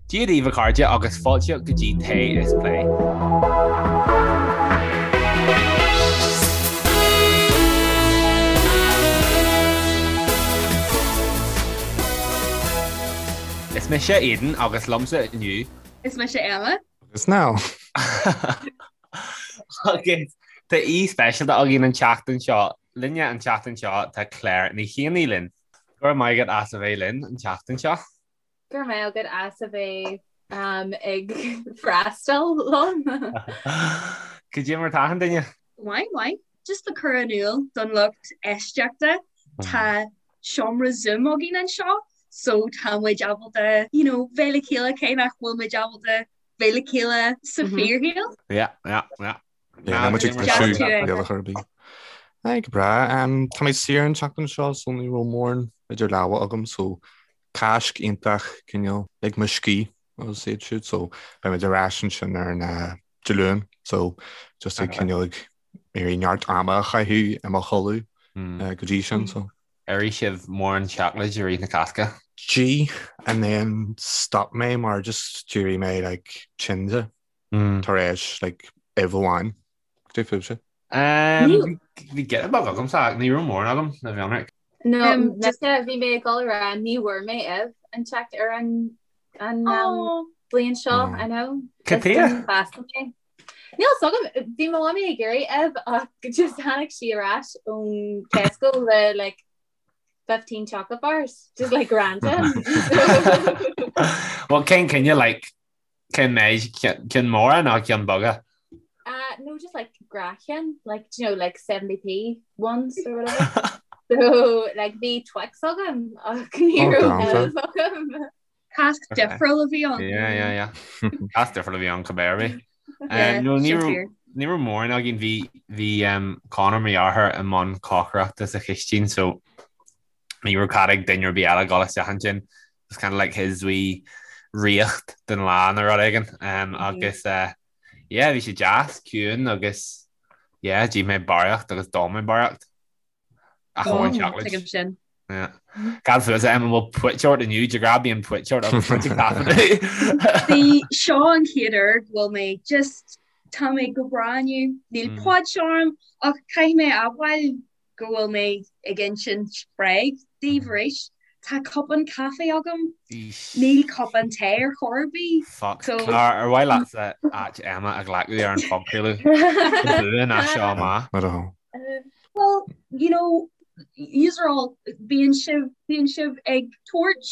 Dia daoibh a chairde agus fáilte go dtí Tae is Plé. Is mise Aidan agus liomsa inniu. Is mise Emma. Agus Niall. Agus tá aoi speisialta againn an tseachtain seo. Linne an tseachtain seo tá Claire Ní Chianaigh linn. Go raibh maith agat as a bheith linn an tseachtain seo. Go raibh maith agat as a bheith ag freastal liom. Cad é mar tá achan duine? Maith, maith. Just le cur in iúl don lucht éisteachta, tá seomra Zoom againn anseo so tá muid ábalta, you know, bheith le chéile cé nach bhfuil muid ábalta bheith le chéile sa fíorshaol. Yeah, yeah, yeah. Yeah, muid ag briseadh rialacha ar bith. Aye, go breá. Tá mé saor an tseachtain seo so ní raibh mórán idir lámha agam so Cáisc iontach cineál lig mo scíth agus iad siúd so beidh muid ar ais ansin ar an Dé Luain so just ag cineál ag iarraidh neart ama a chaitheamh i mo chodladh go dtí sin so. Ar ith sibh mórán seacláid i rith na Cásca? D'ith and then stop mé mar just d'éirigh mé like tinn de tar éis like uibh amháin. Cad é fúibhse? Bhí giota beag agamsa ach ní raibh mórán agam le bheith ionraic. No, mise bhí mé ag dul a rá ní bhfuair mé uibh an teacht ar an an bliain seo, I know. Cad chuige? Níl a fhios agam, bhí mo mhamaí ag iarraidh uibh ach just tháinig sí ar ais ón Tesco le like 15 chocolate bars, just like random. Well cén cineál like Cén méid? Cinn mhóra nó cinn bheaga? Uh, no, just like gnáthchinn, like, do you know, like 70p ones or whatever. So, like, bhí Twix agam ach ní Oh, raibh galánta. uibh agam. Cásc difriúil a bhí ann. Yeah, yeah, yeah. Cás difriúil a bhí ann cibé ar bith. Yeah, Um, no, ní sin raibh fíor. ní raibh mórán againn bhí bhí um, Conor mo dheartháir i mbun cócaireachta sa chistín so ní raibh cead ag duine ar bith eile dul isteach ansin. It was kind of like his wee ríocht den lá nó rud éigin. Um, agus uh, yeah, bhí sé deas, ciúin agus yeah, d'ith mé barraíocht agus d'ól mé barraíocht. Ach amháin seacláid. Tuigim sin. Yeah. Cad fútsa Emma an bhfuil puit ort inniu, de ghnáth bíonn puit ort agus muid ag taifeadadh. Bhí seo an chéad uair go bhfuil mé just tá mé go breá inniu, níl puit orm ach caithfidh mé a admháil go bhfuil mé ag insint bréag daoibh arís. Tá cupán caife agam. Níl cupán tae ar chor ar bith. Fuck. So. Clár, ar mhaith leatsa áit Emma a ghlacadh ar an phodchraoladh? Go buan as seo amach. Not at all. Well, you know, yous are all, bíonn sibh, bíonn sibh ag tabhairt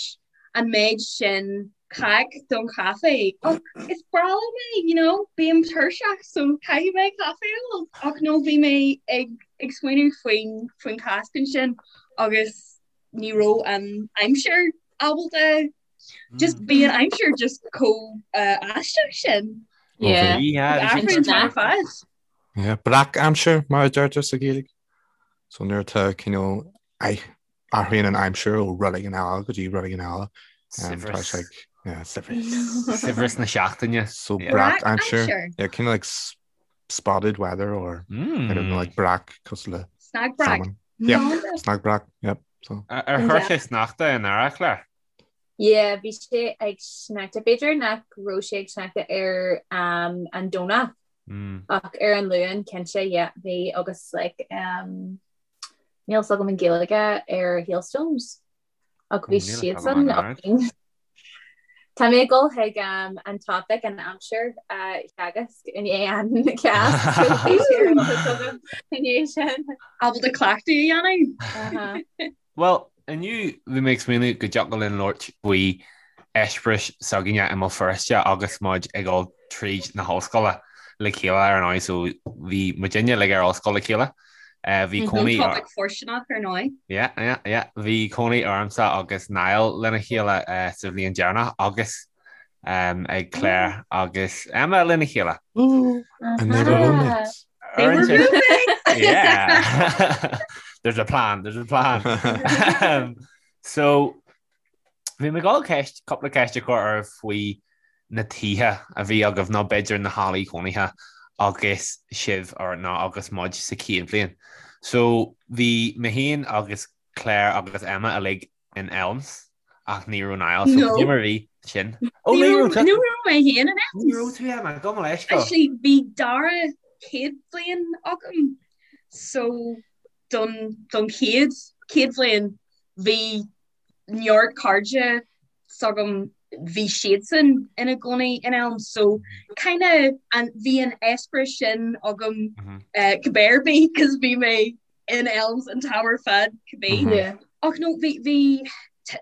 an méid sin cac don chaife ach is breá liom é, you know, bím tuirseach so caithfidh mé caife a ól. Ach no bhí mé ag ag smaoineamh faoin faoin Cháisc ansin agus ní raibh an aimsir ábalta just bhí an aimsir just chomh uh, aisteach sin. Yeah. Yeah, bhí sé Athraíonn an fad. Yeah, breac aimsir mar a deirtear sa Ghaeilge. So nuair atá cineál athraíonn an aimsir ó rud éigin eile go dtí rud éigin eile. Saibhreas. Tá sé yeah, saibhreas. Saibhreas na seachtaine. So Yeah. breac Breac aimsir. aimsir. Yeah, kind of like s- spotted weather or I don't know, like breac cosúil le Snag breac. salmon. Yeah, snag breac. Yep. So Ar ar chuir sé sneachta in earrach, Claire? Yeah, bhí sé ag sneachta. B'fhéidir nach raibh sé ag sneachta ar um, an Domhnach Mm. ach ar an Luan cinnte, yeah, bhí agus like um, Níl 's agam an Ghaeilge ar hailstones ach bhí siadsan againn. Tá mé ag dul chuig an topic an aimsir a theagasc i ndiaidh an Cháisc i ndiaidh sin. Ábalta cleachtadh a dhéanamh. Bhuel, inniu bhí mé ag smaoineamh go dtiocfadh linn labhairt faoi eispéiris s'againne i mBéal Feirste agus muid ag dul tríd na hollscoile le chéile ar ndóigh so bhí muidinne uilig ar ollscoil le chéile. Bhí cónaí Topic fóirsteanach ar ndóigh. Yeah, yeah, yeah. Bhí cónaí ormsa agus Niall lena chéile sa bhliain deireanach agus ag Claire agus Emma lena chéile. Ooh, and they were roommates. They were roommates! Yeah. There's a plan, there's a plan. So, Bhí mé ag dul ceist, cúpla ceist a chur oraibh faoi na tithe a bhí agaibh nó b'fhéidir na hallaí cónaithe agus sibh or nó agus muid sa chéad bhliain. So bhí mé féin agus Claire agus Emma uilig in Elms. Ach ní raibh Niall, so cad é mar a bhí sin? Ó ní raibh tú. Ní raibh mé féin in Elms. Ní raibh tú Emma, gabh mo leithscéal. Actually bhí dara céad bhliain agam so don don chéad chéad bhliain bhí neart cairde s'agam bhí siadsan ina gcónaí in Elms so kinda an bhí an eispéireas sin agam cibé ar bith cos bhí mé in Elms an t-am ar fad cibé. Yeah. Ach no bhí bhí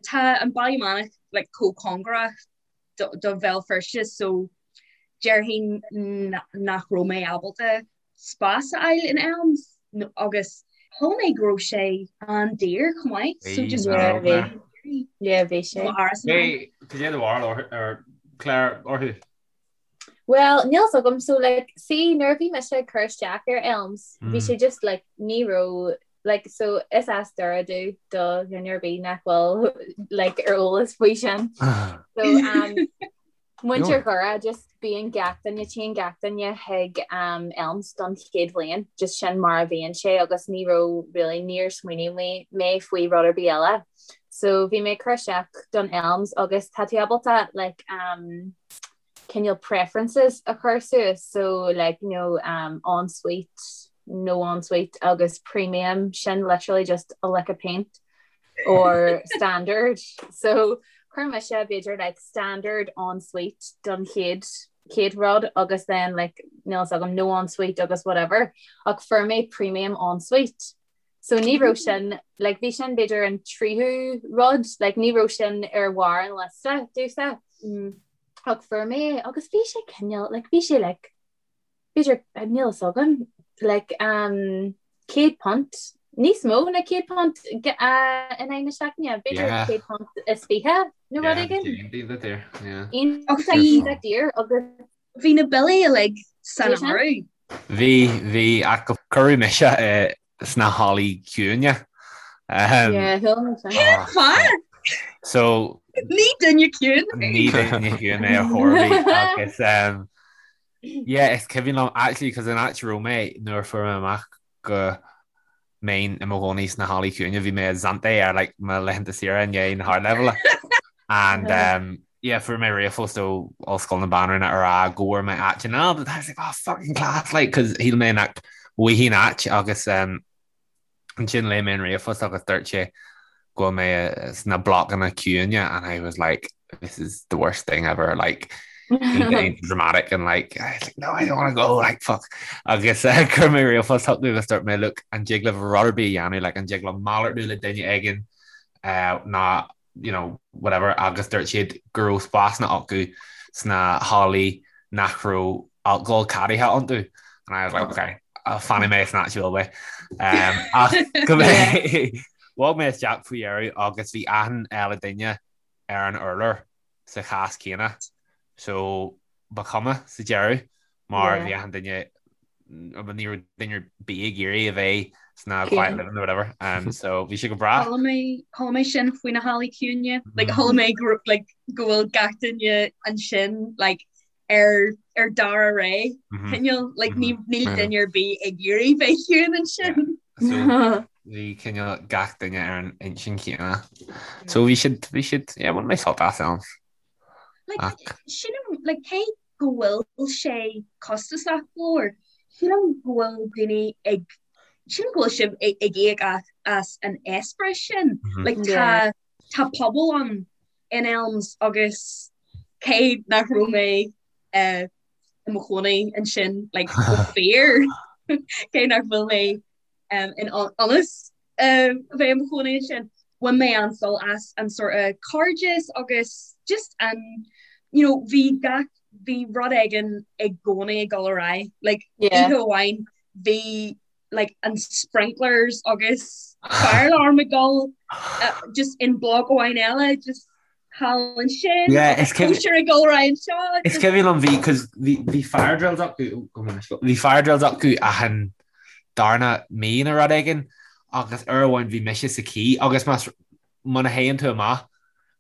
tá an Baile Meánach like chomh cóngarach do do Bhéal Feirste so déarfainn nach raibh mé ábalta spás a fháil in Elms agus chuala mé go raibh sé an-daor chomh maith so just Yeah, bhí. Yeah, bhí sé. Cad é do bharúil ar Claire orthu? Well, níl 's agam, so like, see, nuair a bhí mise ag cur isteach ar Elms, bhí sé just like, ní raibh, like, so is as Doire domh do dhuine ar bith nach bhfuil like ar eolas faoi sin. So, um, muintir Dhoire, just bíonn gach duine, téann gach duine chuig um, Elms don chéad bhliain, just sin mar a bhíonn sé agus ní raibh really, níor smaoinigh mé, mé faoi rud ar bith eile. So bhí mé ag cur isteach don Elms agus tá tú ábalta like, um, cineál preferences a chur suas so like you know um ensuite no ensuite agus premium sin literally just a lick of paint or standard so chuir mise b'fhéidir like standard ensuite don chéad chéad rud agus then like níl 's agam no ensuite agus whatever ach fuair mé premium ensuite so ní raibh sin like bhí sin b'fhéidir an tríú rud like ní raibh sin ar bharr an liosta domhsa. Mm. Ach fuair mé é agus bhí sé cineál like bhí sé like b'fhéidir níl 'fhios agam like um £100 níos mó ná £100 uh, in aghaidh na seachtaine b'fhéidir Yeah. £120 nó rud Yeah, éigin. iontach daor, yeah. Iontach daor agus Bhí na billí uilig san Bhí sin? áireamh. Bhí, bhí, ach cuireadh mise i sna hallaí ciúine. Yeah, thuill mé sin. Cén fáth? So Ní duine ciúin mé. ní duine ciúin mé ar chor ar bith agus um, yeah, is cuimhin liom actually cos an áit a raibh mé nuair a fuair mé amach go mbeinn i mo chónaí sna hallaí ciúine bhí mé i Zante ar like mo laethanta saoire i ndiaidh na hardleibhéile and um, yeah, fuair mé ríomhphost ó Ollscoil na Banríona a rá go bhfuair mé áit in Alba. I was like, oh, fucking class, like, cos shíl mé nach bhfaighinn áit agus um, ansin léigh mé an ríomhphost agus dúirt sé go bhfuil mé sna blocanna ciúine and I was like, this is the worst thing ever, like, dramatic and like, I was like, no, I don't want to go, like, fuck. Agus uh, chuir mé ríomhphost chucu agus dúirt mé, look, an dtig libh rud ar bith a dhéanamh, like, an dtig liom malartú le duine éigin uh, ná you know, whatever, agus dúirt siad go raibh spásanna acu sna hallaí nach raibh alcohol ceadaithe iontu. And I was like, okay, fanfaidh mé san áit a bhfuil mé. Um, ach go mé bhog mé isteach faoi dheireadh agus bhí achan eile duine ar an urlár sa chás céanna. So ba chuma sa deireadh mar bhí achan duine ní raibh duine ar bith ag iarraidh a bheith sna quiet living or whatever. Um, so bhí sé go breá. Chuala mé chuala mé sin faoi na hallaí ciúine. Like chuala mé go like go bhfuil gach duine ansin like ar ar dara ré cineál like ní níl duine ar bith ag iarraidh bheith ciúin ansin. So bhí cineál gach duine ar an intinn chéanna. So bhí siad bhí siad yeah, bhain mé sult as ann. Like sin like cé go bhfuil sé costasach go leor. Sílim go bhfuil daoine ag, sílim go bhfuil sibh ag íoc as an eispéireas sin. Like tá, tá pobal ann in Elms agus cé nach raibh mé i mo chónaí ansin like go fíor, cé nach bhfuil mé in ionas a bheith i mo chónaí ansin. Bhain mé an-sult as an sort of cairdeas agus just an, you know, bhí gach, bhí rud éigin i gcónaí ag dul ar aghaidh. Like, oíche amháin bhí like an sprinklers agus fire alarm ag dul just in bloc amháin eile, just thall ansin, Yeah, is cuimhin- cóisir ag dul ar aghaidh anseo. Is cuimhin liom bhí cos bhí bhí fire drills acu oh, bhí fire drills acu achan darna mí nó rud éigin agus uair amháin bhí mise sa quay agus más muna théann tú amach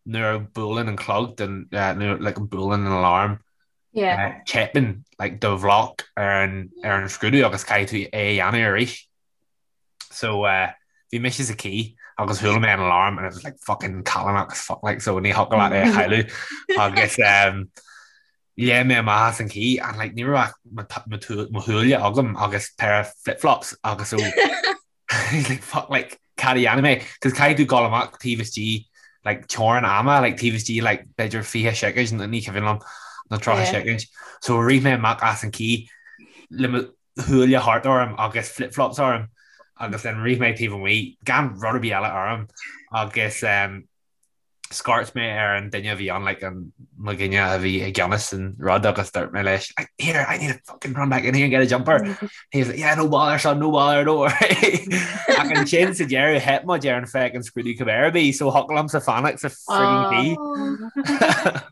nuair a buaileann an clog den eh, nuair like buaileann an alarm Yeah. eh, teipeann like do bhloc ar an ar an scrúdú agus caithfidh tú é a dhéanamh arís. So eh, bhí mise sa quay Agus chuala mé an alarm and it was like fucking callánach as fuck like so ní thiocfadh leat é a chailleadh agus um, léim mé amach as an cith and like ní raibh ach mo thuáille agam agus pair of flip-flops agus so he's like fuck like cad a dhéanfaidh mé cos caithfidh tú dul amach taobh istigh like teorainn ama like taobh istigh like b'fhéidir 20 soicind ní cuimhin liom nó 30 soicind so rith mé amach as an cith le mo thuáille thart orm agus flip-flops orm agus then rith mé taobh amuigh gan rud ar bith eile orm agus um, scairt mé ar an duine a bhí ann like an mo dhuine a bhí i gceannas an rud agus dúirt mé leis like, here I need to fucking run back in here and get a jumper. He was like yeah no bother son no bother don't worry. Ach ansin sa deireadh theip muid ar an fucking scrúdú cibé ar bith so thiocfadh liomsa fanacht sa frigging cith.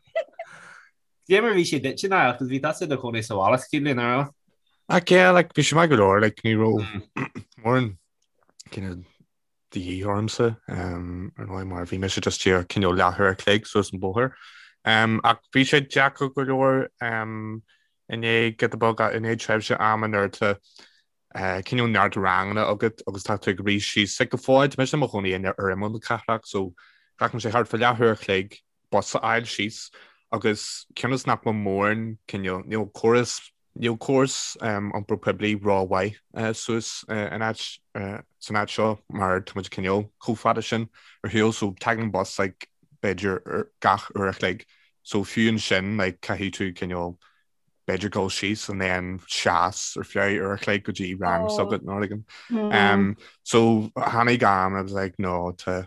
Cé mar bhí sé duit Niall, cos bhí tusa i do chónaí sa bhaile sa chéad bhliain, an raibh? Ach yeah, like, bhí sé maith go leor, like, ní raibh mórán cineál de dhíth ormsa, um, ar ndóigh, mar bhí mise just díreach cineál leathuair a chloig suas an bóthar. Um, ach bhí sé deacair go leor, um, i ndiaidh giota beag, i ndiaidh tréimhse ama nuair atá eh, cineál neart ranganna agat agus tá tú ag rith síos, like, go fóill, tá mise i mo chónaí ar imeall na cathrach, so glacann sé thart fá leathuair a chloig bus a fháil síos agus cionn is nach bhfuil mórán cineál, níl córas, níl córas iompar poiblí rómhaith suas in áit, san áit seo mar tá muid cineál chomh fada sin ar shiúl so tagann bus like b'fhéidir gach uair a chloig so fiú ansin like caithfidh tú cineál b'fhéidir dul síos and then seas ar feadh uair a chloig go dtí rang s'agat nó rud éigin. So tháinig am I was like no tá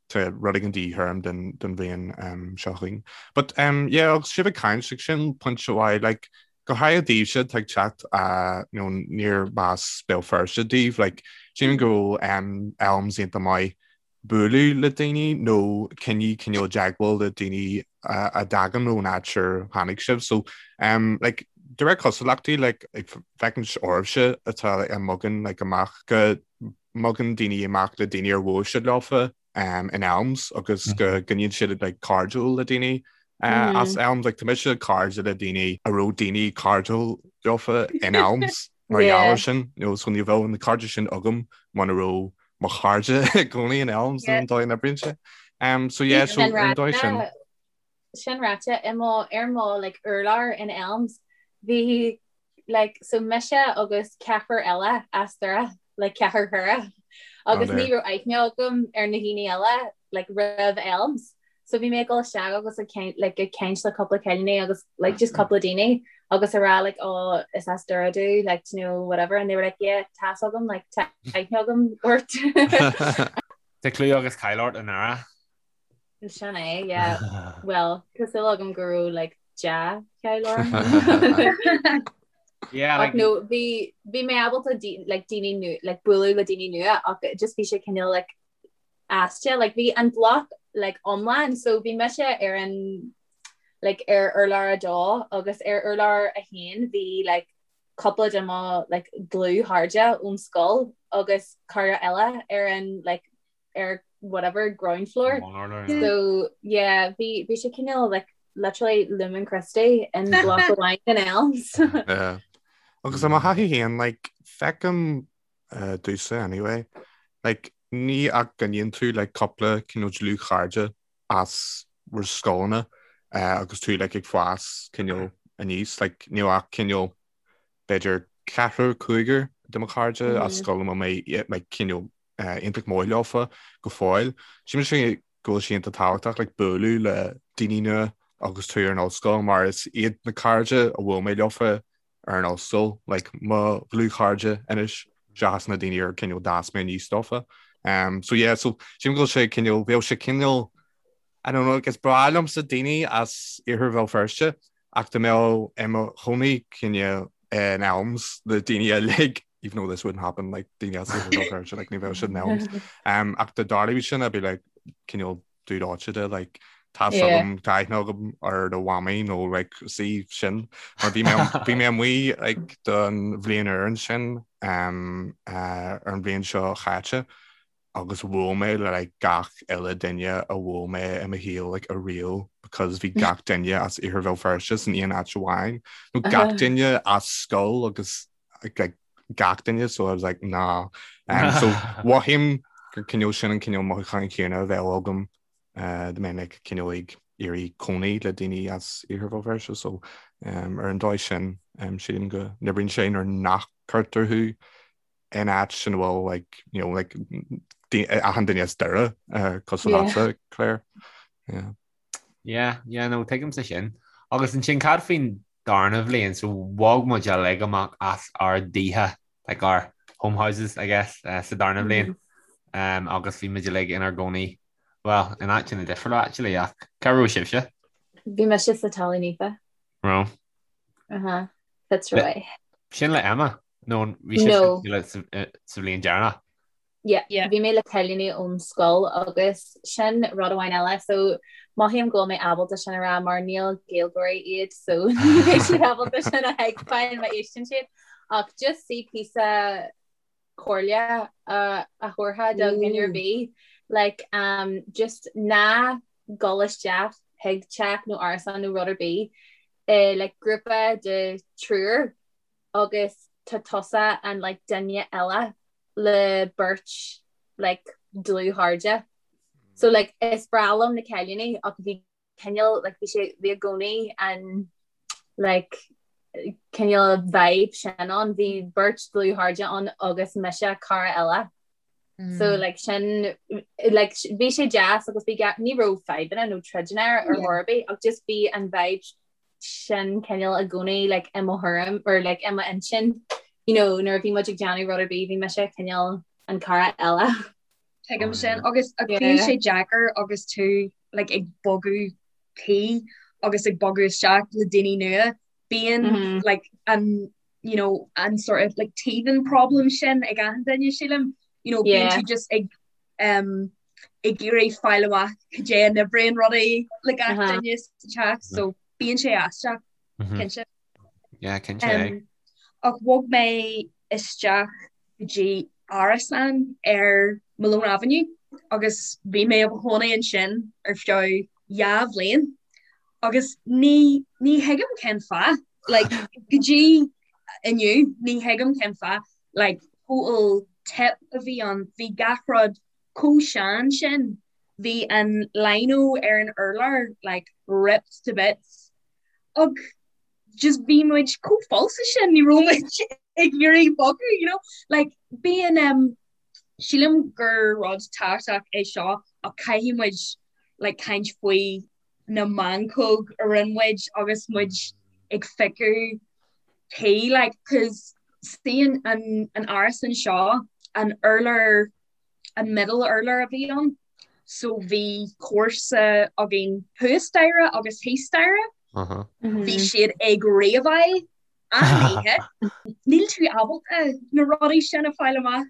Tá rud éigin de dhíth orm don bhliain seo chugainn. But yeah, agus sibh ag caint, like, sin pointe mhaith, like, go háirithe daoibhse atá ag teacht you know, níorbh as Béal Feirste daoibh, like, sílim go bhfuil Elms iontach maith bualadh le daoine nó coinneáil cineál i dteagmháil le daoine a dtagann ón áit ar tháinig sibh. So, um, like, de réir cosúlachtaí, like, ag féachaint oraibhse atá like, a mbogann like, amach go mbogann daoine amach le daoine ar bhuail siad leofa in Elms agus go gcoinníonn siad like cairdiúil le daoine as Elms. Like tá mise cairde le daoine a raibh daoine cairdiúil leofa in Elms mar gheall air sin. You know, so ní bheadh na cairde sin agam muna raibh mo chairde i gcónaí in Elms nó an dóigh a n-oibríonn sé. Um, so yeah, so an dóigh sin. Sin ráite, i mo, ar mo like urlár in Elms, bhí like so mise agus ceathrar eile as Doire, like ceathrar Dhoire, agus ní raibh aithne agam ar na daoine eile like roimh Elms. So bhí mé ag dul isteach agus ag caint like ag caint le cúpla cailíní agus like just cúpla daoine agus a rá like oh is as Doire domh like you know whatever and they were like yeah tá's agam like tá aithne agam ort. Tá clú agus cáil ort i nDoire. Sin é, yeah. Well, tá súil agam go raibh like dea-cháil orm. Yeah, like, no, bhí bhí mé ábalta like daoine nu like bualadh le daoine nua ach just bhí sé cineál like aisteach like bhí an block like iomlán so bhí mise ar an like ar urlár a dó agus ar urlár a haon bhí like cúpla de mo like dlúthchairde ón scoil agus cara eile ar an like ar whatever ground floor. So yeah, bhí bhí sé cineál like literally Lumen Christi in block amháin in Elms. Yeah. Agus i mo thaithí féin, like, feicim uh, domhsa anyway, like, ní ach go gcoinníonn tú like, cúpla cineál dlúthchairde as bhur scoileanna uh, agus tú like, ag fás cineál aníos, like, níl ach cineál b'fhéidir ceathrar cúigear de mo chairde as scoil a bhfuil mé like, cineál iontach maith leofa go fóill. Sílim go bhfuil sé iontach tábhachtach like bualadh le daoine nua agus tú ar an ollscoil mar is iad na cairde a bhuail mé leofa ar an ollscoil like mo dhlúthchairde anois seachas na daoine ar cineál d'fhás mé aníos leofa. Um, so yeah, so sílim go bhfuil sé cineál, bheadh sé cineál I don't know, like, is breá liomsa daoine as Iarthar Bhéal Feirste ach dá mbeadh i mo chónaí cineál in Elms le daoine uilig, even though this wouldn't happen, like daoine as Iarthar Bhéal Feirste, like ní bheadh siad in Elms. Um, ach dá dtarlódh sin, I'd be like, cineál dúd áite de, like, tá agam tá aithne agam ar do mhamaí nó like sí sin mar bhí mé bhí mé amuigh like don bhliain úr ansin um, uh, ar an bhliain seo chaite agus bhuail mé le like gach uile duine a bhuail mé i mo shaol like ariamh because bhí gach duine as Iarthar Bhéal Feirste san aon áit amháin nó gach duine as scoil agus like gach duine so I was like nah um, so mhothaím gur cineál sin an cineál mothúcháin chéanna a bheadh agam dá mbeinn like cineál ag iarraidh cónaí le daoine as Iarthar Bhéal Feirste so ar an dóigh sin sílim go n-oibríonn sé nuair nach cuirtear thú in áit ina bhfuil like you know like achan duine as Doire cosúil leatsa Claire. Yeah. Yeah, yeah, no, tuigimse sin. Agus ansin cad faoin darna bhliain, so bhog muid uilig amach as ár dtithe, like our home houses, I guess, uh, sa darna bhliain. Mm -hmm. um, agus bhí muid uilig inár gcónaí, well, in áiteanna difriúla, actually, ach cá raibh sibhse? Bhí mise sa Talamh Naofa. Raibh. Uh -huh. Fitzroy. Sin le Emma? Nó bhí sibhse sa bhliain deireanach? Yeah, yeah. Bhí mé le cailíní ón scoil agus sin rud amháin eile so mothaím go bhfuil mé ábalta sin a rá mar níl Gaeilgeoirí iad so ní bheidh siad ábalta sin a thuigbheáil má éisteann siad ach just sí píosa comhairle a a thabharfá do dhuine ar bith like um, just ná gabh isteach chuig teach nó árasán nó rud ar bith eh, like grúpa de triúr agus tá tusa an like duine eile le beirt like dlúthchairde. So like is breá liom na cailíní ach bhí cineál like bhí sé bhí i gcónaí an like cineál vibe sin ann bhí beirt dlúthchairde ann agus mise cara eile. Mm. So like sin like bhí sé deas agus bhí ní raibh fadhbanna nó troideanna ar chor ar bith ach just bhí an vibe sin cineál i gcónaí like i mo thuairim or like i m'intinn you know nuair a bhí muid ag déanamh rud ar bith bhí mise cineál an cara eile. Tuigim sin agus bíonn sé deacair agus tú like ag bogadh tí agus ag bogadh isteach le daoine nua bíonn mm -hmm. like an you know an sort of like teething problem sin ag achan duine sílim you know bíonn tú just ag um ag iarraidh fáil amach cad é a n-oibríonn rudaí le gach duine sa teach so bíonn sé aisteach cinnte. Yeah, cinnte. Um, ach bhog mé isteach go dtí árasán ar Malone Avenue agus bhí mé i mo chónaí ansin ar feadh dhá bhliain agus ní ní thuigim cén fáth like go dtí inniu ní thuigim cén fáth like total tip a bhí ann bhí gach rud chomh sean sin bhí an lino ar an urlár like ripped to bits ach just bhí muid chomh falsa sin ní raibh muid ag iarraidh bogadh you know like bíonn um, sílim gur rud tábhachtach é seo ach caithfidh muid like caint faoi na meancóg a rinne muid agus muid ag piocadh tí like cause see an an an árasán seo an urlár an middle urlár a bhí ann so bhí comharsa againn thuas staighre agus thíos staighre uh -huh. bhí siad ag raveáil achan oíche níl tú ábalta na rudaí sin a fáil amach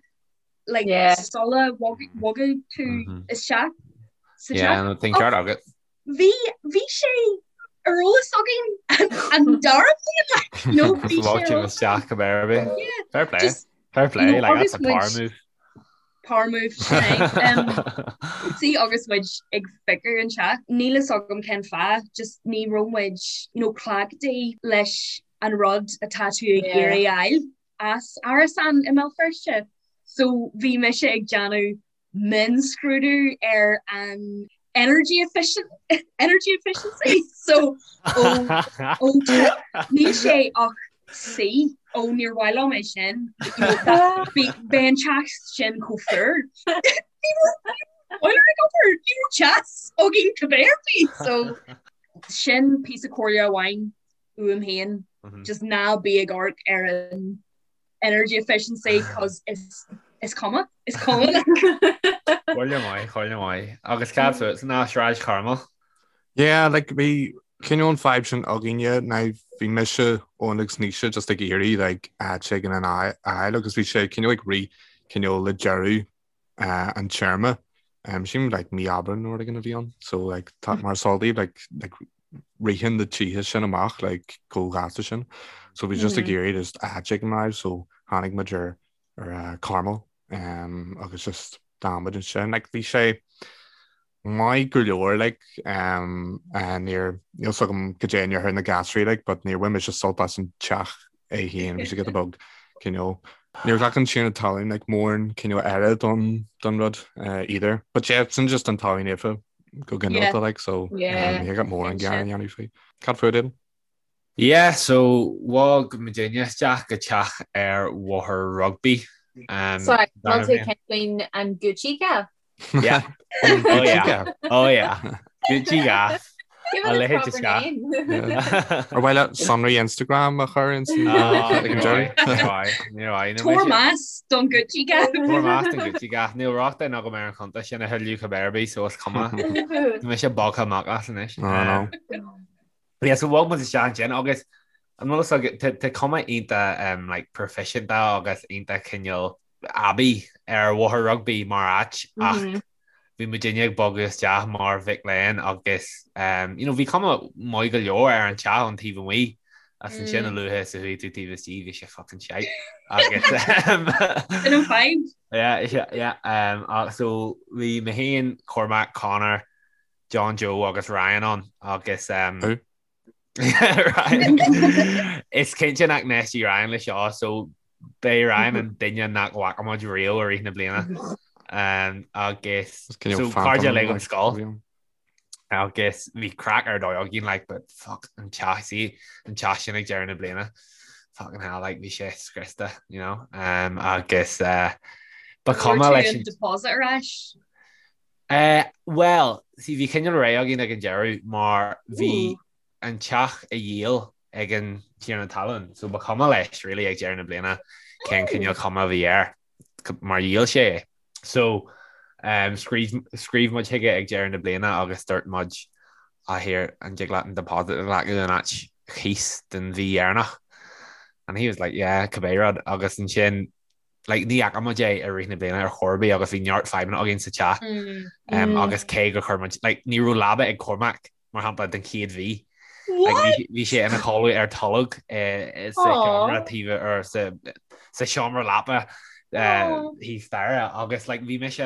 like yeah. sula bhogann tú mm -hmm. isteach sa teach. Yeah, tá an ceart agat. Bhí bhí sé ar eolas againn an dara bliain like, no bhí sé ar eolas isteach go béir bith. Fair play. Just, Fair play, you know, like that's a power move. Power move um, sí agus muid ag piocadh an teach. Níl fhios agam cén fáth, just ní raibh muid you know, cleachtaithe leis an rud atá tú ag iarraidh a fháil. as árasán i mBéal Feirste so bhí mise ag déanamh mionscrúdú ar an energy efficient energy efficiency so ó ó níl sé ach C ó níor mhaith liom é sin Beidh an teach sin chomh fuar Boiler ag obair ní raibh teas againn cibé ar bith so sin píosa comhairle amháin uaim féin just ná bí ag amharc ar an energy efficiency cos is is cuma is cuma like. Comhairle maith, comhairle maith. Agus cad fút ná Sráid Charmel? Yeah, like bhí cineál an fadhb sin againne ná bhí mise Eoin agus Naoise just ag iarraidh like áit éigin a fháil agus bhí sé cineál ag rith cineál le deireadh an téarma. Sílim like mí Aibreán nó rud éigin a bhí ann so like tá mar is eol daoibh like like ritheann na tithe sin amach like chomh gasta sin. So bhí just ag iarraidh just áit éigin a fháil so tháinig muid ar ar uh, Carmel um, agus just d'fhan muid ansin like bhí sé maith go leor like um, uh, níor níl fhios agam cad é a ndéarfadh na gasraí like but níor bhain mise sult as an teach é féin bhí sé giota beag cineál. Níor ghlac an Tiarna Talún like mórán cineál aire don don rud either. But yeah, sin just an Talamh Naofa go ginearálta like so yeah. ní got mórán gearán a dhéanamh faoi. Cad fút Aidan? Yeah, so bhog muidinne isteach go teach ar Bhóthar Rugby. Um, Sorry, bhfuil tú ag caint faoin an Gucci Gaff? Yeah. Oh yeah. Oh yeah. Gucci Gaff. Give it a proper name. Ar mhaith leat sonraí Instagram a chur in ag an deireadh? Tabhair meas don Gucci Gaff. Tabhair meas don Gucci Gaff. Níl rochtain agam ar an chuntas sin a thuilleadh cibé ar bith, so is cuma. Tá mise bogtha amach as anois. Oh no. Yeah, so bhog muid isteach ansin agus an bhfuil fhios agat, tá cuma iontach like proifisiúnta agus iontach cineál aibí ar Bhóthar Rugby mar áit ach bhí muidinne ag bogadh isteach mar mhic léinn agus you know bhí cuma maith go leor ar an teach ón taobh amuigh ach ansin a luaithe is a chuaigh tú taobh istigh bhí sé fucking shite agus Sin an fadhb. Yeah, yeah, um, so bhí mé féin, Cormac, Conor, John Joe agus Ryan ann agus um, Who? Ryan. Is cinnte nach n-éistfidh Ryan le seo so b'é Ryan an duine nach bhfaca muid riamh i rith na bliana. Um, agus Is cineál so phantom cairde uilig ón like, scoil a bhí ann. agus bhí craic ar dóigh againn like but fuck an teach sí an teach sin ag deireadh na bliana. Fucking hell like bhí sé scriosta you know um, agus uh, ba chuma leis an deposit ar ais. Eh, bhuel, see, bhí cineál réidh againn ag an deireadh mar bhí an teach á dhíol ag an tiarna talún, so ba chuma leis really ag deireadh na bliana cén cineál cuma a bhí air mar dhíol sé é. So, um, scríobh, scríobh muid chuige ag deireadh na bliana agus dúirt muid, ah here, an dtig leat an deposit a ghlacadh in áit chíos den mhí dheireanach? And he was like, yeah, cibé rud. Agus ansin like ní fhaca muid é i rith na bliana ar chor ar bith agus bhí neart fadhbanna againn sa teach um, agus cé gur chuir muid like, ní raibh leaba ag Cormac mar shampla den chéad mhí. Like, bhí sé ina chodladh ar tolg eh, sa seomra taobh ar sa sa seomra leapa eh, thíos staighre agus like, bhí mise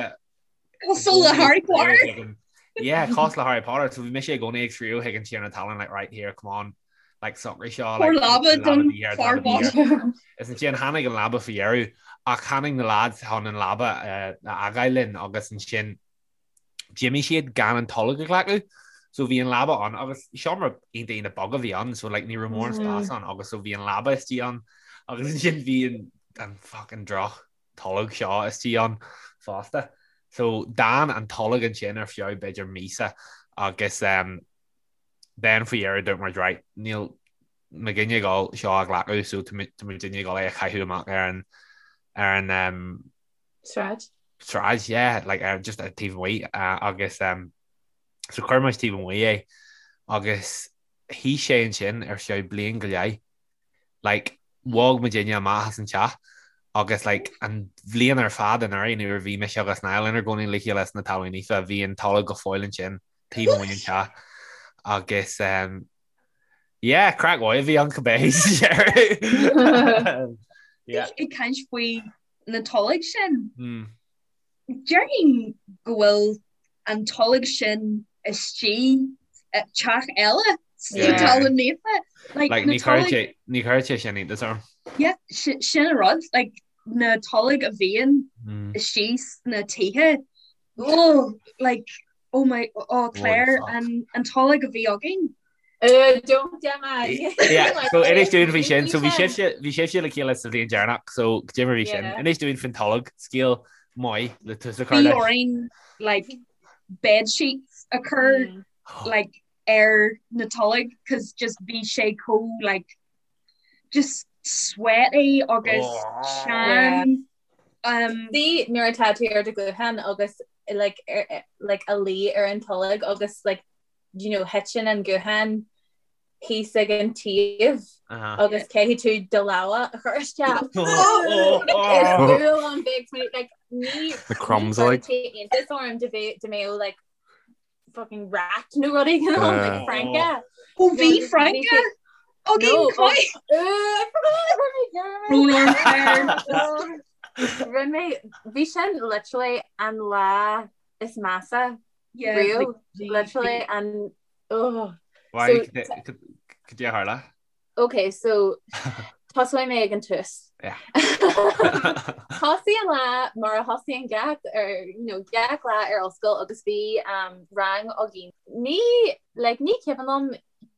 Cosúil le Harry Potter. Yeah, cosúil le Harry Potter. So bhí mise i gcónaí ag scríobh chuig an tiarna talún like right here, come on. Like socraigh seo like, leaba don fear bocht. Is ansin tháinig an leaba faoi dheireadh ach tháinig na lads chun an leaba eh, a fhágáil linn agus ansin d'imigh siad gan an tolg a ghlacadh. So bhí an leaba ann agus seomra iontach iontach beag a bhí ann so like ní raibh mórán spás ann agus so bhí an leaba istigh ann agus ansin bhí an an fucking droch tolg seo istigh ann fosta. So d'fhan an tolg ansin ar feadh b'fhéidir míosa agus um, then faoi dheireadh dúirt muid right, níl muidinne ag dul seo a ghlacadh so tá muidinne ag dul é a chaitheamh amach ar an ar an um, Sráid. Sráid, yeah, like ar just ar taobh amuigh uh, agus um, so chuir muid taobh amuigh é agus shuigh sé ansin ar feadh bliain go leith. Like, bhog muidinne amach as an teach agus like an bhliain ar fad anuraidh nuair a bhí mise agus Niall inár gcónaí le chéile sna Talún Naofa bhí an tolg go fóill ansin taobh amuigh den teach agus um, yeah, craic mhaith a bhí ann cibé sa deireadh. Yeah. Ag caint faoi na tolg sin. Mm. Déarfainn go bhfuil an tolg sin istigh teach eile sa Talamh Naofa. Like, ní chuirfeadh sé sin iontas orm. Yeah, sin an rud, like, na tolg a bhíonn istigh sna tithe. Oh, like, oh my, oh Claire, an, an tolg a bhí againn. Don't Gemma. Yeah, so inis dúinn faoi sin, so bhí sibhse bhí sibhse le chéile sa bhliain deireanach, so cad é mar bhí sin. Inis dúinn faoin tolg, scéal maith le tús a chur Bhí leis. orainn like bed sheets a chur like ar na tolg cos just bhí sé chomh like just sweaty agus teann. Um, Bhí nuair atá tú ar do ghuthán agus like, ar, like, ag luí ar an tolg agus like, you know, thiteann an guthán thíos ag an taobh agus caithfidh tú do lámha a chur isteach. Is fuath liom bheith like ní The crumbs like. iontas orm dá mbeadh like fucking rat nó rud éigin ann like Franca. Ó bhí Franca againn chomh Brón orm Claire. Rinne mé bhí sin literally an lá is measa Yeah, riamh bhí- literally an oh. Why So- cad é a tharla? Okay, so Tosóidh mé ag an tús. Thosaigh an lá mar a thosaíonn gach ar you know, gach lá ar ollscoil agus bhí um, rang againn. Ní like, ní cuimhin liom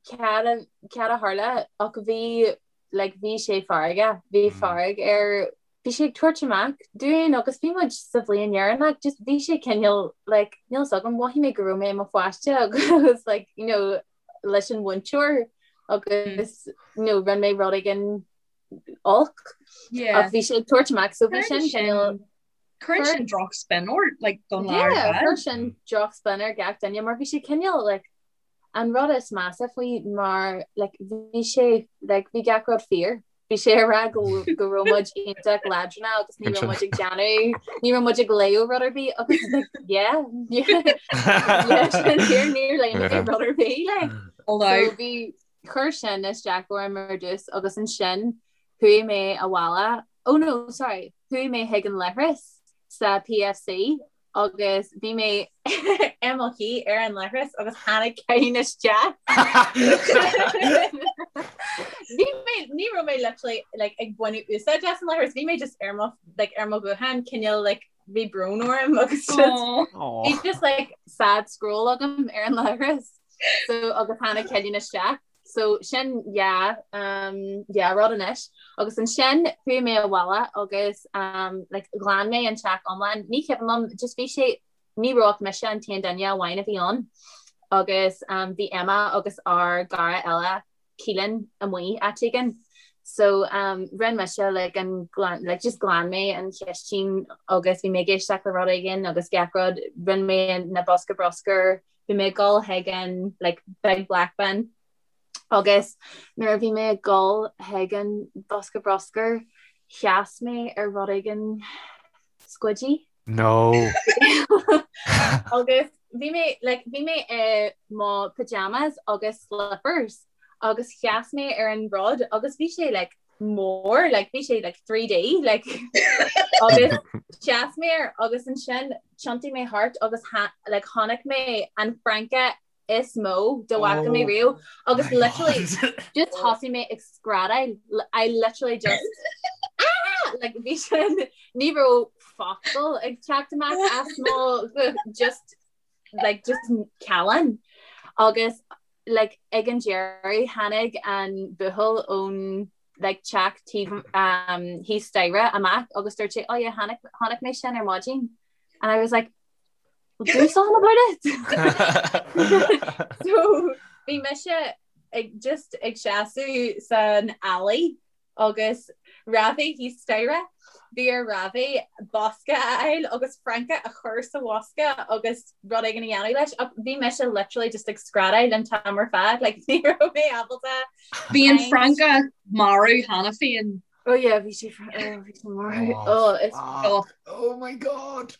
cad a cad a tharla ach bhí like, bhí sé feargach, bhí mm. fearg air bhí sé ag tabhairt amach dúinn agus bhí muid sa bhliain dheireanach just bhí sé cineál like, níl 's agam mhothaigh mé go raibh mé i mo pháiste agus like, you know, leis an mhúinteoir agus you know, rinne mé rud éigin olc ach bhí sé ag tabhairt amach so bhí sin cineál Cuireann sin droch spin ort like don lá ar fad. Chuir sin droch spin ar gach duine mar bhí sé cineál like an rud is measa faoi mar like bhí sé like bhí gach rud fíor. Bhí sé ag rá go go raibh muid iontach leadránach agus ní raibh muid ag déanamh ní raibh muid ag léamh rud ar bith agus like yeah yeah sin fíor níor léigh mé rud ar bith like. So bhí chuir sin isteach orm ar dtús agus ansin chuaigh mé abhaile oh no sorry chuaigh mé chuig an leithreas sa PFC agus bhí mé i mo shuí ar an leithreas agus tháinig Cillian isteach. Bhí mé ní raibh mé literally like ag baint úsáid as an leithreas, bhí mé just ar mo like ar mo ghuthán cineál like bhí brón orm agus just bhí just like sad scroll agam ar an leithreas. So agus tháinig Cillian isteach. So sin yeah um yeah rud anois. Agus ansin chuaigh mé abhaile agus um like ghlan mé an teach iomlán. Ní cuimhin liom just bhí sé ní raibh ach mise an t-aon duine amháin a bhí ann. Agus um bhí Emma agus ár gcara eile Keelan amuigh áit éigin. So um rinne mise like an glan like just ghlan mé an chistin agus bhí mé ag éisteacht le rud éigin agus gach rud rinne mé na bosca bruscair Bhí mé ag dul chuig an like big black bin agus nuair a bhí mé ag dul chuig an bosca bruscair sheas mé ar rud éigin squidgy. No. Agus bhí mé like bhí mé i mo pyjamas agus slippers agus sheas mé ar an rud agus bhí sé like mór like bhí sé like 3D like agus sheas mé air agus ansin thiontaigh mé thart agus like chonaic mé an francadh is mó dá bhfaca mé oh riamh agus literally just thosaigh mé ag screadaíl I literally just ah! like bhí sin ní raibh focal ag teacht amach as mo just like just callán agus like ag an deireadh tháinig an buachaill ón like teach taobh um, thíos staighre amach agus dúirt sé oh yeah chonaic chonaic mé sin ar maidin and I was like well, do something about it so bhí mise ag just ag seasamh san alley Agus Ravi thíos staighre, bhí ar Ravi bosca a fháil agus francadh a chur sa bhosca agus rud éigin a dhéanamh leis ach bhí mise literally just ag screadaíl an t-am ar fad, like ní raibh mé ábalta Bhí an francadh marbh cheana féin. Oh yeah, bhí sé oh, bhí sé marbh. Oh, it's oh, oh my god.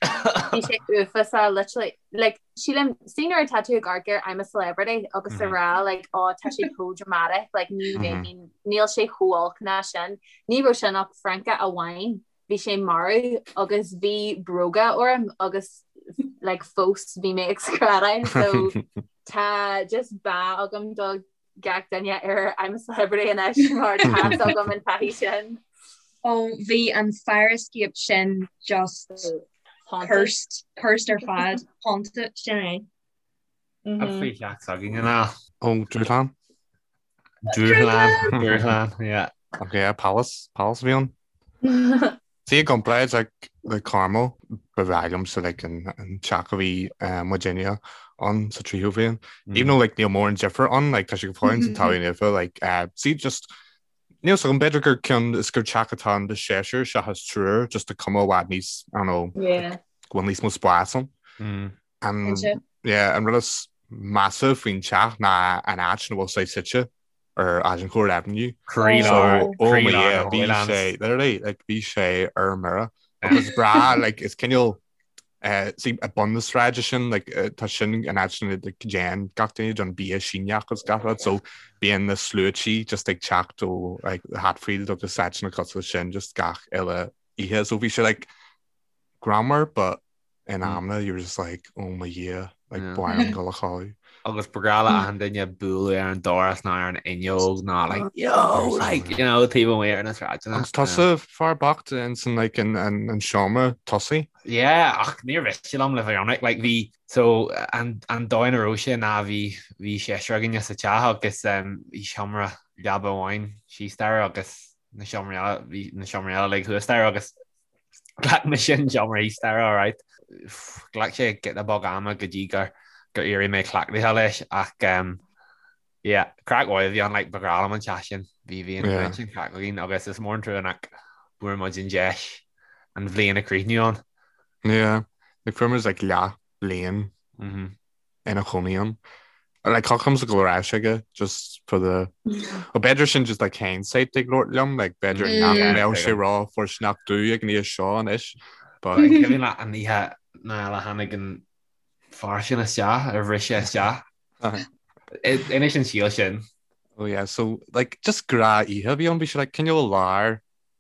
Bhí sé uafásach literally like sílim see nuair atá tú ag amharc ar I'm a Celebrity agus a rá like oh tá sé chomh dramatic like ní bheinn níl sé chomh olc ná sin. Ní raibh sin ach francadh amháin bhí sé marbh agus bhí bróga orm agus like fós bhí mé ag screadaíl so tá just bá agam do gach duine ar I'm a Celebrity anois mar tá agam an taithí sin. Ó bhí an fire escape sin just cursed, cursed ar fad, haunted sin é. An faoi theach s'againn an ea? Ó Dúshlán? Dúshlán, Dúshlán, yeah. Ok, yeah, Palace, Palace a bhí ann. See i gcomparáid like le Carmel, ba bhreá liomsa like an an teach a bhí muidinne ann sa tríú bhliain. Even though like níl mórán difear ann, like tá sé go fóill an taobh nimhe, like see just níl 's agam b'fhéidir gur cionn is gur teach atá ann de seisear seachas triúr, just tá cuma i bhfad níos, I don't know, Yeah. go bhfuil níos mó spás ann. An Cinnte. yeah, an rud is measa faoin teach ná an áit ina bhfuil sé suite. ar Agincourt Avenue. Croílár, So, oh my croílár yeah, na bhí Hoylands. sé, literally, like, bhí sé ar mire. Agus breá, like, is cineál, eh, see, ag bun na sráide sin, like, eh, tá sin an áit sin, like, déan gach duine don bia Síneach agus gach rud, so bíonn na sluaití just ag teacht ó, like, Hatfield agus áiteanna cosúil leis sin, just gach uile oíche. So bhí sé, like, greannmhar, but in amanna, you were just like, oh my Dhia, like, Yeah. ba mhaith liom dul a chodladh. Agus ba ghnách le achan duine bualadh ar an doras nó ar an fhuinneog nó like yo like you know taobh amuigh ar na sráideanna. Agus tusa fear bocht ins an like an an an seomra tosaigh. Yeah ach níor mhiste liom le bheith ionraic like bhí so an an dóigh ina raibh sé ná bhí bhí seisear againne sa teach agus um, bhí seomra leaba amháin síos staighre agus na seomraí eile bhí na seomraí eile like thuas staighre agus Ghlac mise an seomra thíos staighre alright. Ghlac sé giota beag ama go dtí gur gur éirigh mé cleachtaithe leis ach um, yeah, craic mhaith a bhí ann like ba ghnách liom an teach sin. Bhí bhí an yeah. sin craic againn agus is mór an trua nach bhfuair muid an deis an bhliain a chríochnú ann. Yeah, like fuair muid like leath bliain mm -hmm. ina chónaí ann. Like thiocfadh liomsa dul ar ais aige just for the Well b'fhéidir sin just like hindsight ag labhairt liom like b'fhéidir mm. nach mbeadh sé ró-fhóirsteanach domh ag an aois seo anois. But An cuimhin leat an oíche nuair a tháinig an fear sin isteach ar bhris sé isteach. Inis an scéal sin. Oh yeah, so like just gnáthoíche a bhí ann bhí sé like cineál lár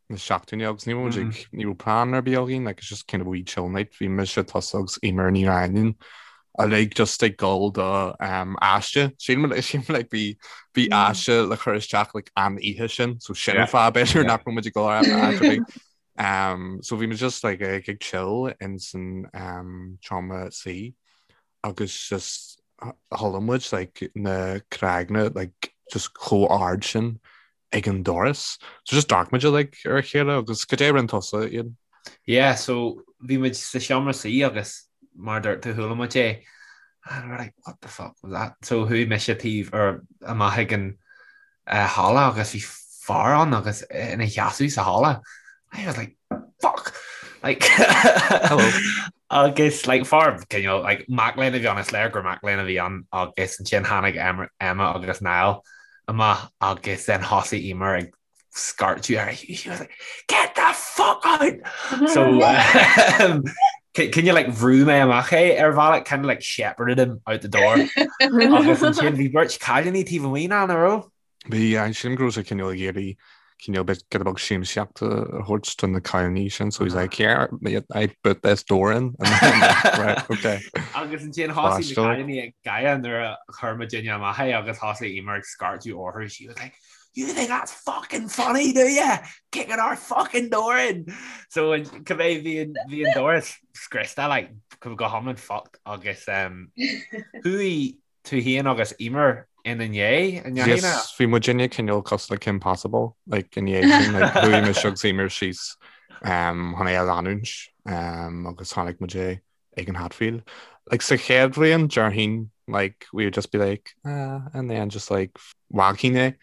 na seachtaine agus ní raibh muid ní raibh plean ar bith againn like it's just kind of wee chill night bhí mise tusa agus Eimear Ní Raghallaigh uilig just ag dul do um, aiste sílim sílim like bhí bhí aiste le chur isteach like an oíche sin so sin an fáth b'fhéidir nach raibh muid ag dul ar áit ar bith. Um, so bhí muid just like ag ag chill in san um, seomra suí agus just chuala muid like na cnaganna like just chomh ard sin ag an doras. So just d'amharc muid like ar a chéile agus cad é a rinne tusa Ian? Yeah, so bhí muid sa seomra suí agus mar a dúirt tú chuala muid é and we're like what the fuck was that? So chuaigh mise taobh ar amach ag an uh, halla agus bhí fear ann agus ina sheasamh sa halla. I was like fuck! Like Hello. agus like fear cineál like mac léinn a bhí ann is léir gur mac léinn a bhí ann agus ansin tháinig Emma agus Niall amach agus then thosaigh Eimear ag scairteadh air she was like get the fuck out! So um, cineál like bhrú mé amach é ar bhealach kind of like shepherded him out the door agus ansin bhí beirt cailíní taobh amuigh ná nach raibh? Bhí sílim go raibh sé cineál ag iarraidh cineál bit giota beag siamsaíocht a thabhairt do na cailíní sin so he's like here I put this door in and then, right okay. Agus ansin thosaigh na cailíní ag gáire nuair a chuir muidinne amach é agus thosaigh Eimear ag scairteadh orthu she was like you think that's fucking funny do you? Kicking our fucking door in! So cibé bhí an bhí an doras scriosta like go hiomlán fucked agus um, chuaigh tú féin agus Eimear ina ndiaidh, an ndeachaigh ná? Yes, bhí muidinne cineál cosúil le Kim Possible, like, ina dhiaidh sin, like, chuaigh mise agus Eimear síos um, chun é a leanúint um, agus chonaic muid é ag an Hatfield. Like, sa chéad bhliain, déarfainn, like, we would just be like, ah, and then just like, bhfágfainn é.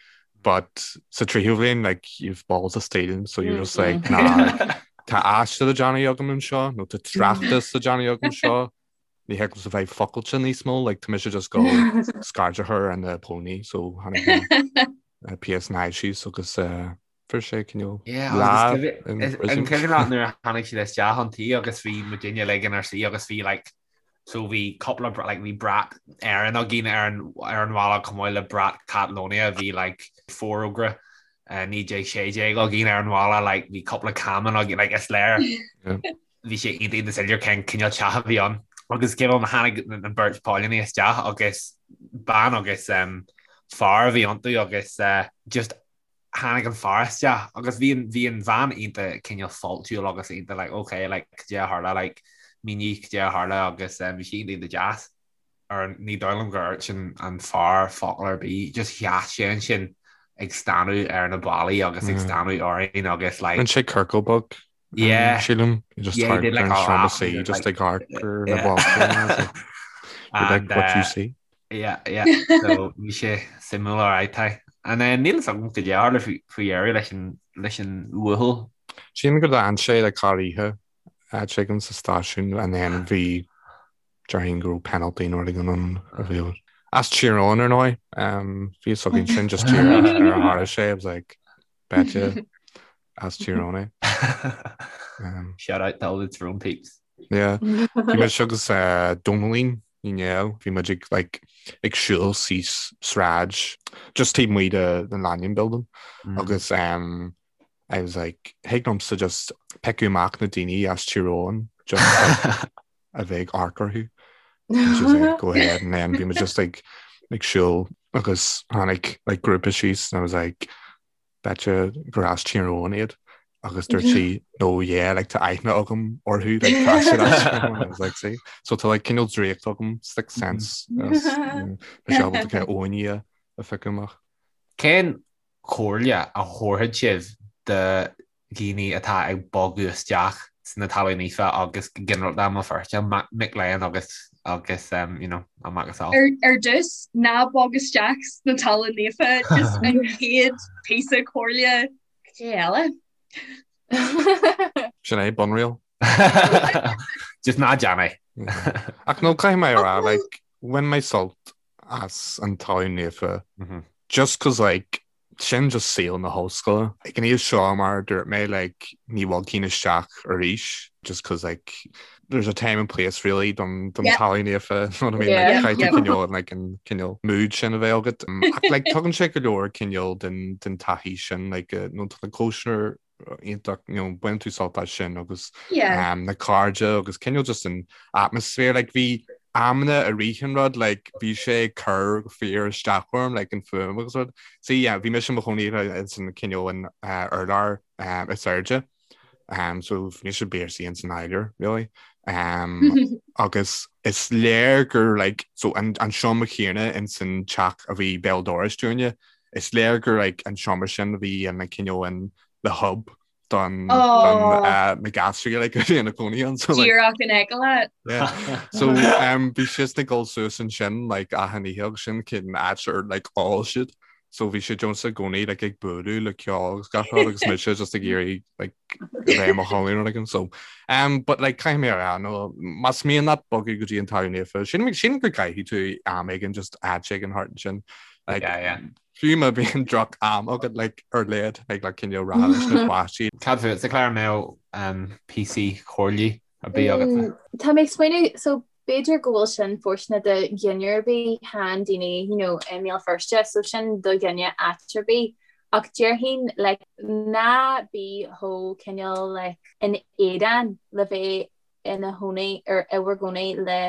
But sa tríú bhliain, like, you've balls of steel, so you're just like, nah, like, tá aiste le déanamh agam anseo, nó tá tráchtas le déanamh agam anseo, Ní thig liomsa bheith fuckáilte níos mó, like, tá mise just ag dul scairt a chur ar na póilíní, so tháinig na PSNI síos agus fuair sé cineál Yeah, lá in prison. An cuimhin leat nuair a tháinig siad isteach chun tí agus bhí muidinne uilig inár suí agus bhí like so bhí cúpla like bhí brat Éireann againn ar an ar an bhalla chomh maith le brat Catalonia bhí like forógra 1916 againn ar an bhalla like bhí cúpla camán againn like is léir bhí sé iontach iontach soiléir cén cineál teach a bhí ann. Agus cé bith tháinig an beirt póilíní isteach agus bean agus fear a bhí iontu agus just tháinig an fear isteach agus bhí an bhí an bhean iontach cineál fáiltiúil agus iontach like ok like cad é a tharla like mínigh cad é a tharla agus bhí sí iontach iontach deas. Ar ní dóigh liom gur dhúirt an fear focal ar bith, just sheas sé ansin ag stánadh ar na ballaí agus ag stánadh orainn agus like. Rinne sé ciorcal beag Yeah. Sílim just Yeah, he did like a laugh. See, just ag amharc ar na ballaí. You like what you see. Yeah, yeah. So bhí sé suimiúil alright tá. And then níl a fhios agam cad é a tharla faoi dheireadh leis an leis an bhuachaill. Sílim gur d'fhan sé le corroíche áit éigin sa stáisiún and then bhí déarfainn go raibh penalty nó rud éigin ann a bhí as Tír Eoghain ar ndóigh. Bhí a fhios againn sin just díreach ar a tharla sé I was like Betcha as Tír Eoghain é. Shout out to all the Tyrone peeps. Yeah. Bhí mise agus Dónallín Ní Néill, bhí muid ag like ag siúl síos sráid just taobh amuigh de the Lanyon building agus um, I was like thig liomsa just piocadh amach na daoine as Tír Eoghain just like, a bheith ag amharc orthu. And she was like, go ahead and then bhí muid just like ag siúl agus tháinig like grúpa síos and I was like betcha gur as Tír Eoghain iad agus dúirt sí no yeah like tá aithne agam orthu like tá siad as Tír Eoghain. I was like see so tá like cineál draíocht agam sixth sense agus tá sé ábalta kind of Eoghainí a phiocadh amach. Cén chomhairle a thabharfadh sibh do dhaoine atá ag bogadh isteach sna Talún Naofa agus go ginearálta i mBéal Feirste, mic léinn agus agus you know, a macasamhail. Ar ar dtús, ná bog isteach sna Talún Naofa, just an chéad píosa comhairle cad é eile. Sin é, bunriail. Just ná déan é. Ach no, caithfidh mé a rá, like, bhain mé sult as an Talún Naofa just cos like, Sin just saol na hollscoile. Ag an aois seo, mar a dúirt mé, like, ní bhogfainn isteach arís just cos like, there's a time and place really don don Talún Naofa, you know what I mean? Like, caithfidh tú cineál like, an cineál mood sin a bheith agat. Ach like, tugann sé go leor cineál den den taithí sin, like, nó tá na cóisir iontach, you know, baineann tú sult as sin agus yeah. um, na cairde agus cineál just an atmosphere, like bhí amanna i rith an rud, like bhí sé ag cur fíor isteach orm, like an fuaim agus rud. So yeah, bhí mise i mo chónaí san cineál an uh, urlár um, is airde. Um, so bhí mise basically in san áidir, really. Um, agus is léir gur like, so an, an seomra céanna in san teach a bhí béal dorais dúinne, Is léir gur like an seomra sin a bhí ina cineál in the hub don don na gasraí like a bhí ina cónaí ann so like Díreach in aice leat. Yeah. So um, bhí siad ag dul suas ansin like achan oíche agus sin cén áit ar like ól siad. So bhí siad just i gcónaí like ag bualadh le ceol agus gach rud agus mise just ag iarraidh like a bheith i mo chodladh nó like so um, but like caithfidh mé a rá no más mian leat bogadh go dtí an Talamh Naofa sin sin go gcaithfidh tú am éigin just áit éigin thart ansin Like, yeah, yeah. Fiú má bhíonn droch am agat like, ar lead ag like, cineál rá leis na páistí. Cad fútsa a Claire an mbeadh um, píosa comhairle ar bith agat? Mm, tá mé ag smaoineamh so b'fhéidir go bhfuil sin fóirsteanach do dhuine ar bith chan daoine you know, i mBéal Feirste so sin do dhuine áit ar bith ach déarfainn like, ná bí chomh cineál like, in éadan le bheith ina chónaí ar i bhur gcónaí le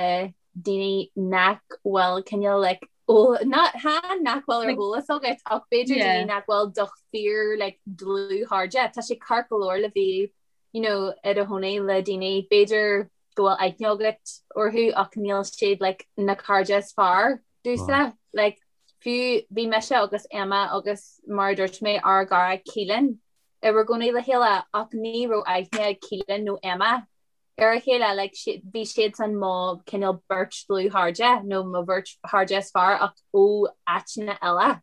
daoine nach bhfuil cineál like chan nach bhfuil ar eolas agat ach b'fhéidir daoine nach bhfuil do fíor like dlúthchairde. Tá sé ceart go leor le bheith you know i do chónaí le daoine b'fhéidir go bhfuil aithne agat orthu ach níl siad like na cairde is fearr duitse. Like fiú bhí mise agus Emma agus mar a dúirt mé ár gcara Keelan inár gcónaí le chéile ach ní raibh aithne ag Keelan nó Emma ar a chéile, like, bhí siadsan mo cineál beirt dlúthchairde nó mo bheirt chairde is fearr ach ó áiteanna eile.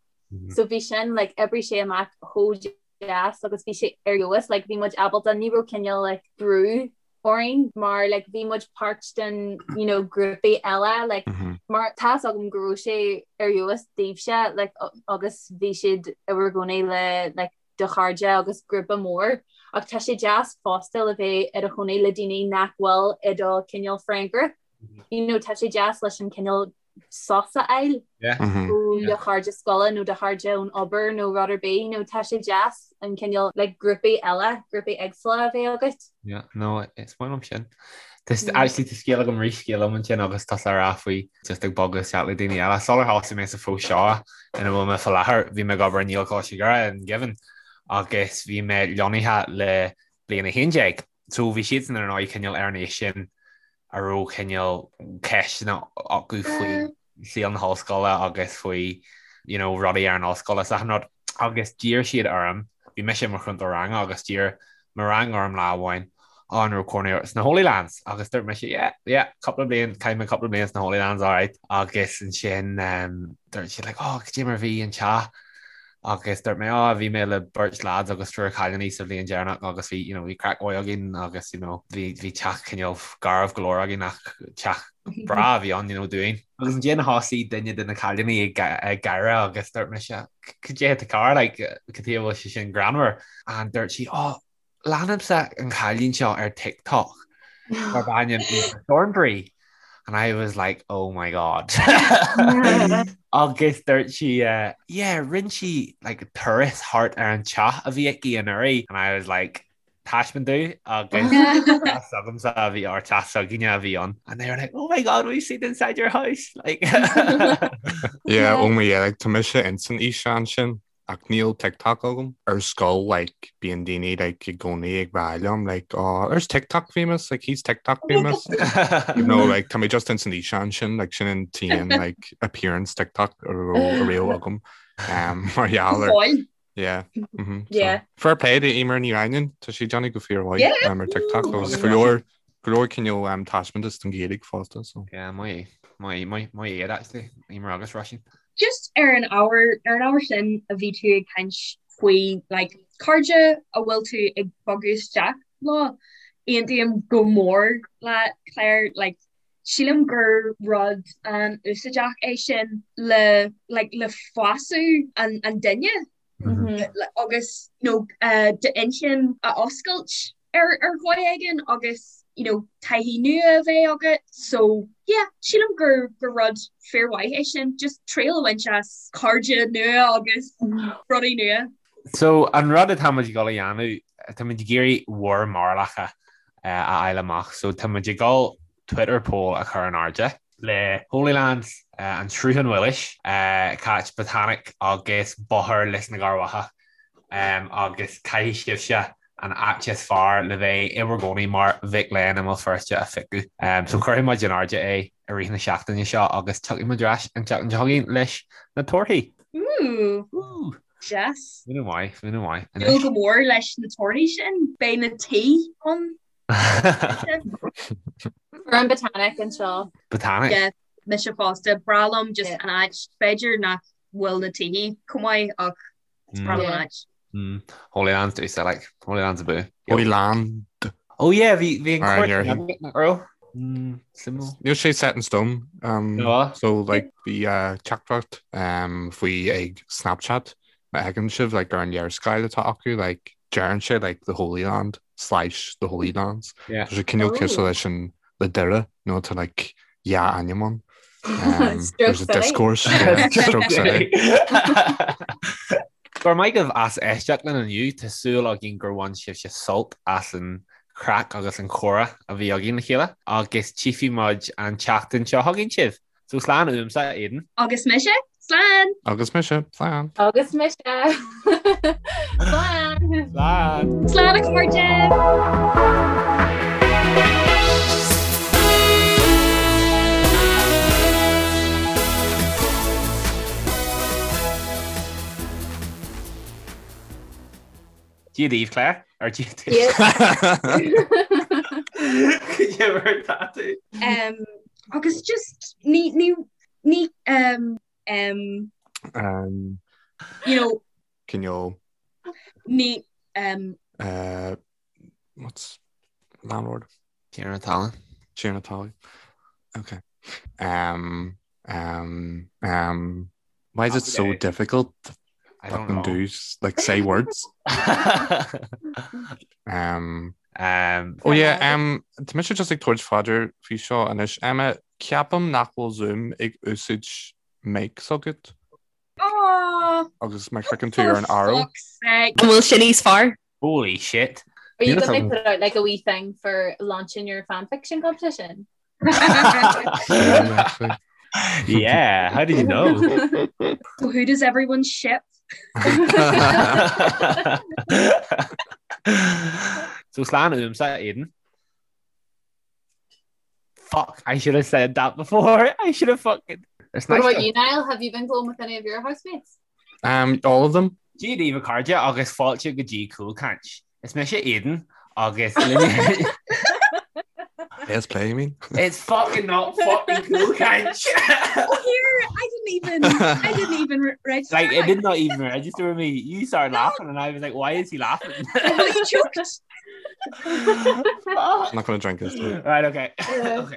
So bhí sin, like, oibrigh sé amach chomh deas agus bhí sé ar fheabhas, like, bhí muid ábalta, ní raibh cineál, like, brú orainn mar, like, bhí muid páirt den, you know, grúpaí eile, like, mar tá's agam go raibh sé ar fheabhas daoibhse, like, agus bhí siad i bhur gcónaí le, like, do chairde agus grúpa mór ach tá sé deas fosta le bheith i do chónaí le daoine nach bhfuil i do cineál friend group. You know, tá sé deas leis an cineál sos a fháil ó do chairde scoile nó do chairde ón obair nó rud ar bith, you know, tá sé deas an cineál like, grúpaí eile, grúpaí éagsúla a bheith agat. Yeah, no, is maith liom sin. Actually tá scéal agam rith scéal liom ansin agus tusa ag rá faoi just ag bogadh isteach le daoine eile. Sular thosaigh mé sa phost seo ina bhfuil mé faoi láthair, bhí mé ag obair i nGaelcholáiste Dhoire in Given agus bhí mé lonnaithe le bliain 11. So bhí siadsan ar ndóigh cineál ar an aois sin a raibh cineál ceisteanna acu faoi saol na hollscoile agus faoi you know, rudaí ar an ollscoil is achan rud. Agus d'iarr siad orm, bhí mise i mo chrúntóir ranga agus d'iarr mo rang orm lá amháin, oh, an raibh cónaí ort sna Holy Lands? Agus dúirt mise, yeah, yeah, cúpla bliain, chaith mé cúpla bliain sna Holy Lands, alright. Agus ansin um, dúirt siad like, oh, cad é mar a bhí an teach? Agus dúirt mé, oh, bhí mé le beirt lads agus triúr cailíní sa bhliain deireanach agus bhí, you know, bhí craic mhaith againn agus, you know, bhí, bhí teach cineál garbh go leor againn ach teach breá a bhí ann, you know, dúinn. Agus ansin thosaigh duine de na cailíní ag, ag gáire agus dúirt mise, cad é atá cearr, like, cad chuige a bhfuil sé sin greannmhar? And dúirt sí, oh, Leanaimse an cailín seo ar TikTok darb ainm Aoife Thornbury and I was like oh my god agus dúirt sí yeah rinne sí like turas thart ar an teach a bhí aici anuraidh and I was like. taispeáint domh agus teach s'agamsa a bhí or teach s'againne a bhí ann and they were like oh my god we've seen inside your house like Yeah, oh my yeah, like tá mise ins an fhíseán sin ach níl TikTok agam. Ar scoil like bíonn daoine like i gcónaí ag rá liom like oh there's TikTok famous like he's TikTok famous you know like tá mé just ins an fhíseán sin like sin an t-aon like appearance TikTok a raibh agam um, mar gheall ar Yeah. Mm -hmm. Yeah. So, fair play do Emer Ní Raghnaill, tá sí ag déanamh go fíormhaith yeah. um, ar TikTok agus go leor go leor cineál um, taispeántas don Ghaeilge fosta. So. Yeah, maith maith maith maith iad actually Emer agus Róisín. Just ar an ábhar ar an ábhar sin a bhí tú ag caint faoi like, cairde a bhfuil tú ag bogadh isteach leo aontaím go mór le Claire like, sílim gur rud an-úsáideach é sin le like le fású an an duine agus you know d'inchinn a oscailt ar ar dhóigh éigin agus you know taithí nua a bheith agat so yeah sílim gur gur rud fíormhaith é sin just triail a bhaint as cairde nua agus rudaí nua. So an rud atá muid ag dul a dhéanamh tá muid ag iarraidh bhur mbarúlacha a fháil amach. So tá muid ag dul Twitter poll a chur in airde le Holylands, an Sruthán Mhilis, Cáit Botanic agus Bóthar Lios na gCearrbhachach agus caithfidh sibhse an áit is fearr le bheith i bhur gcónaí mar mhic léinn i mBéal Feirste a phiocadh. So cuirfidh muid in airde é i rith na seachtaine seo agus tiocfaidh muid ar ais an tseachtain seo chugainn leis na torthaí. Ooh! Deas. Muna maith, muna maith. Dúil go mór leis na torthaí sin. Beidh na tí ann. An Botanic anseo. Botanic? Yeah, mise fosta. Breá liom just an áit. B'fhéidir nach bhfuil na tithe chomh maith ach is breá liom an áit. Holylands do like. Holylands abú. Holyland. Oh yeah, bhí bhí an cuairt nach raibh? Níl sé set in stone. Um, so like bhí uh, teachtaireacht um, faoi ag Snapchat má fheiceann sibh like, ar an léarscáil atá acu like, deireann sé like, the Holy Land slash the Holy Lands. Yeah. Tá sé cineál Oh. cosúil leis an le Doire nó tá like, dhá ainm ann. Um, Stroke there's a City. discourse. Yeah, Stroke City. Go raibh maith agaibh as éisteacht linn inniu, tá súil againn gur bhain sibhse sult as an chraic agus an chomhrá a bhí againn le chéile agus tchífidh muid an tseachtain seo chugainn sibh. So slán uaimse, Aidan. Agus mise, slán! Agus mise, slán! Agus mise, slán! Slán! Slán a chairde! Dia daoibh, Claire. Ar Dia daoibh. Cad é mar atá tú? Um, agus just ní ní ní um, um, Um, you know cineál ní um, uh, what's landlord? Tiarna talún. Tiarna talún. Okay. Um, um, um, why is it so Okay. difficult to I don't fucking know. do like say words? Um, um, oh yeah, um, tá mise just ag tabhairt faoi deara faoi seo anois. Emma, ceapaim nach bhfuil Zoom ag úsáid mic s'agat oh, agus má chliceann tú ar an arrow. fuck's sake. An bhfuil sin níos fearr? Holy shit. Are you Níl going a to put out like a wee thing for launching your fan fiction competition? Actually. Yeah, how did you know? So who does everyone ship? So slán uaimse, Aidan. Fuck, I should have said that before. I should have fucking... It's What nice about to- you, Niall? Have you been going with any of your housemates? Um, all of them? Dia daoibh a chairde agus fáilte go dtí Cúlchaint. Is mise Aidan agus Let's play, you mean? It's fucking not fucking Cúlchaint. Oh, here, I didn't even, I didn't even re- register. Like it did not even register with me. You started laughing and I was like, why is he laughing? You choked. I'm not going to drink this. Right, okay. okay.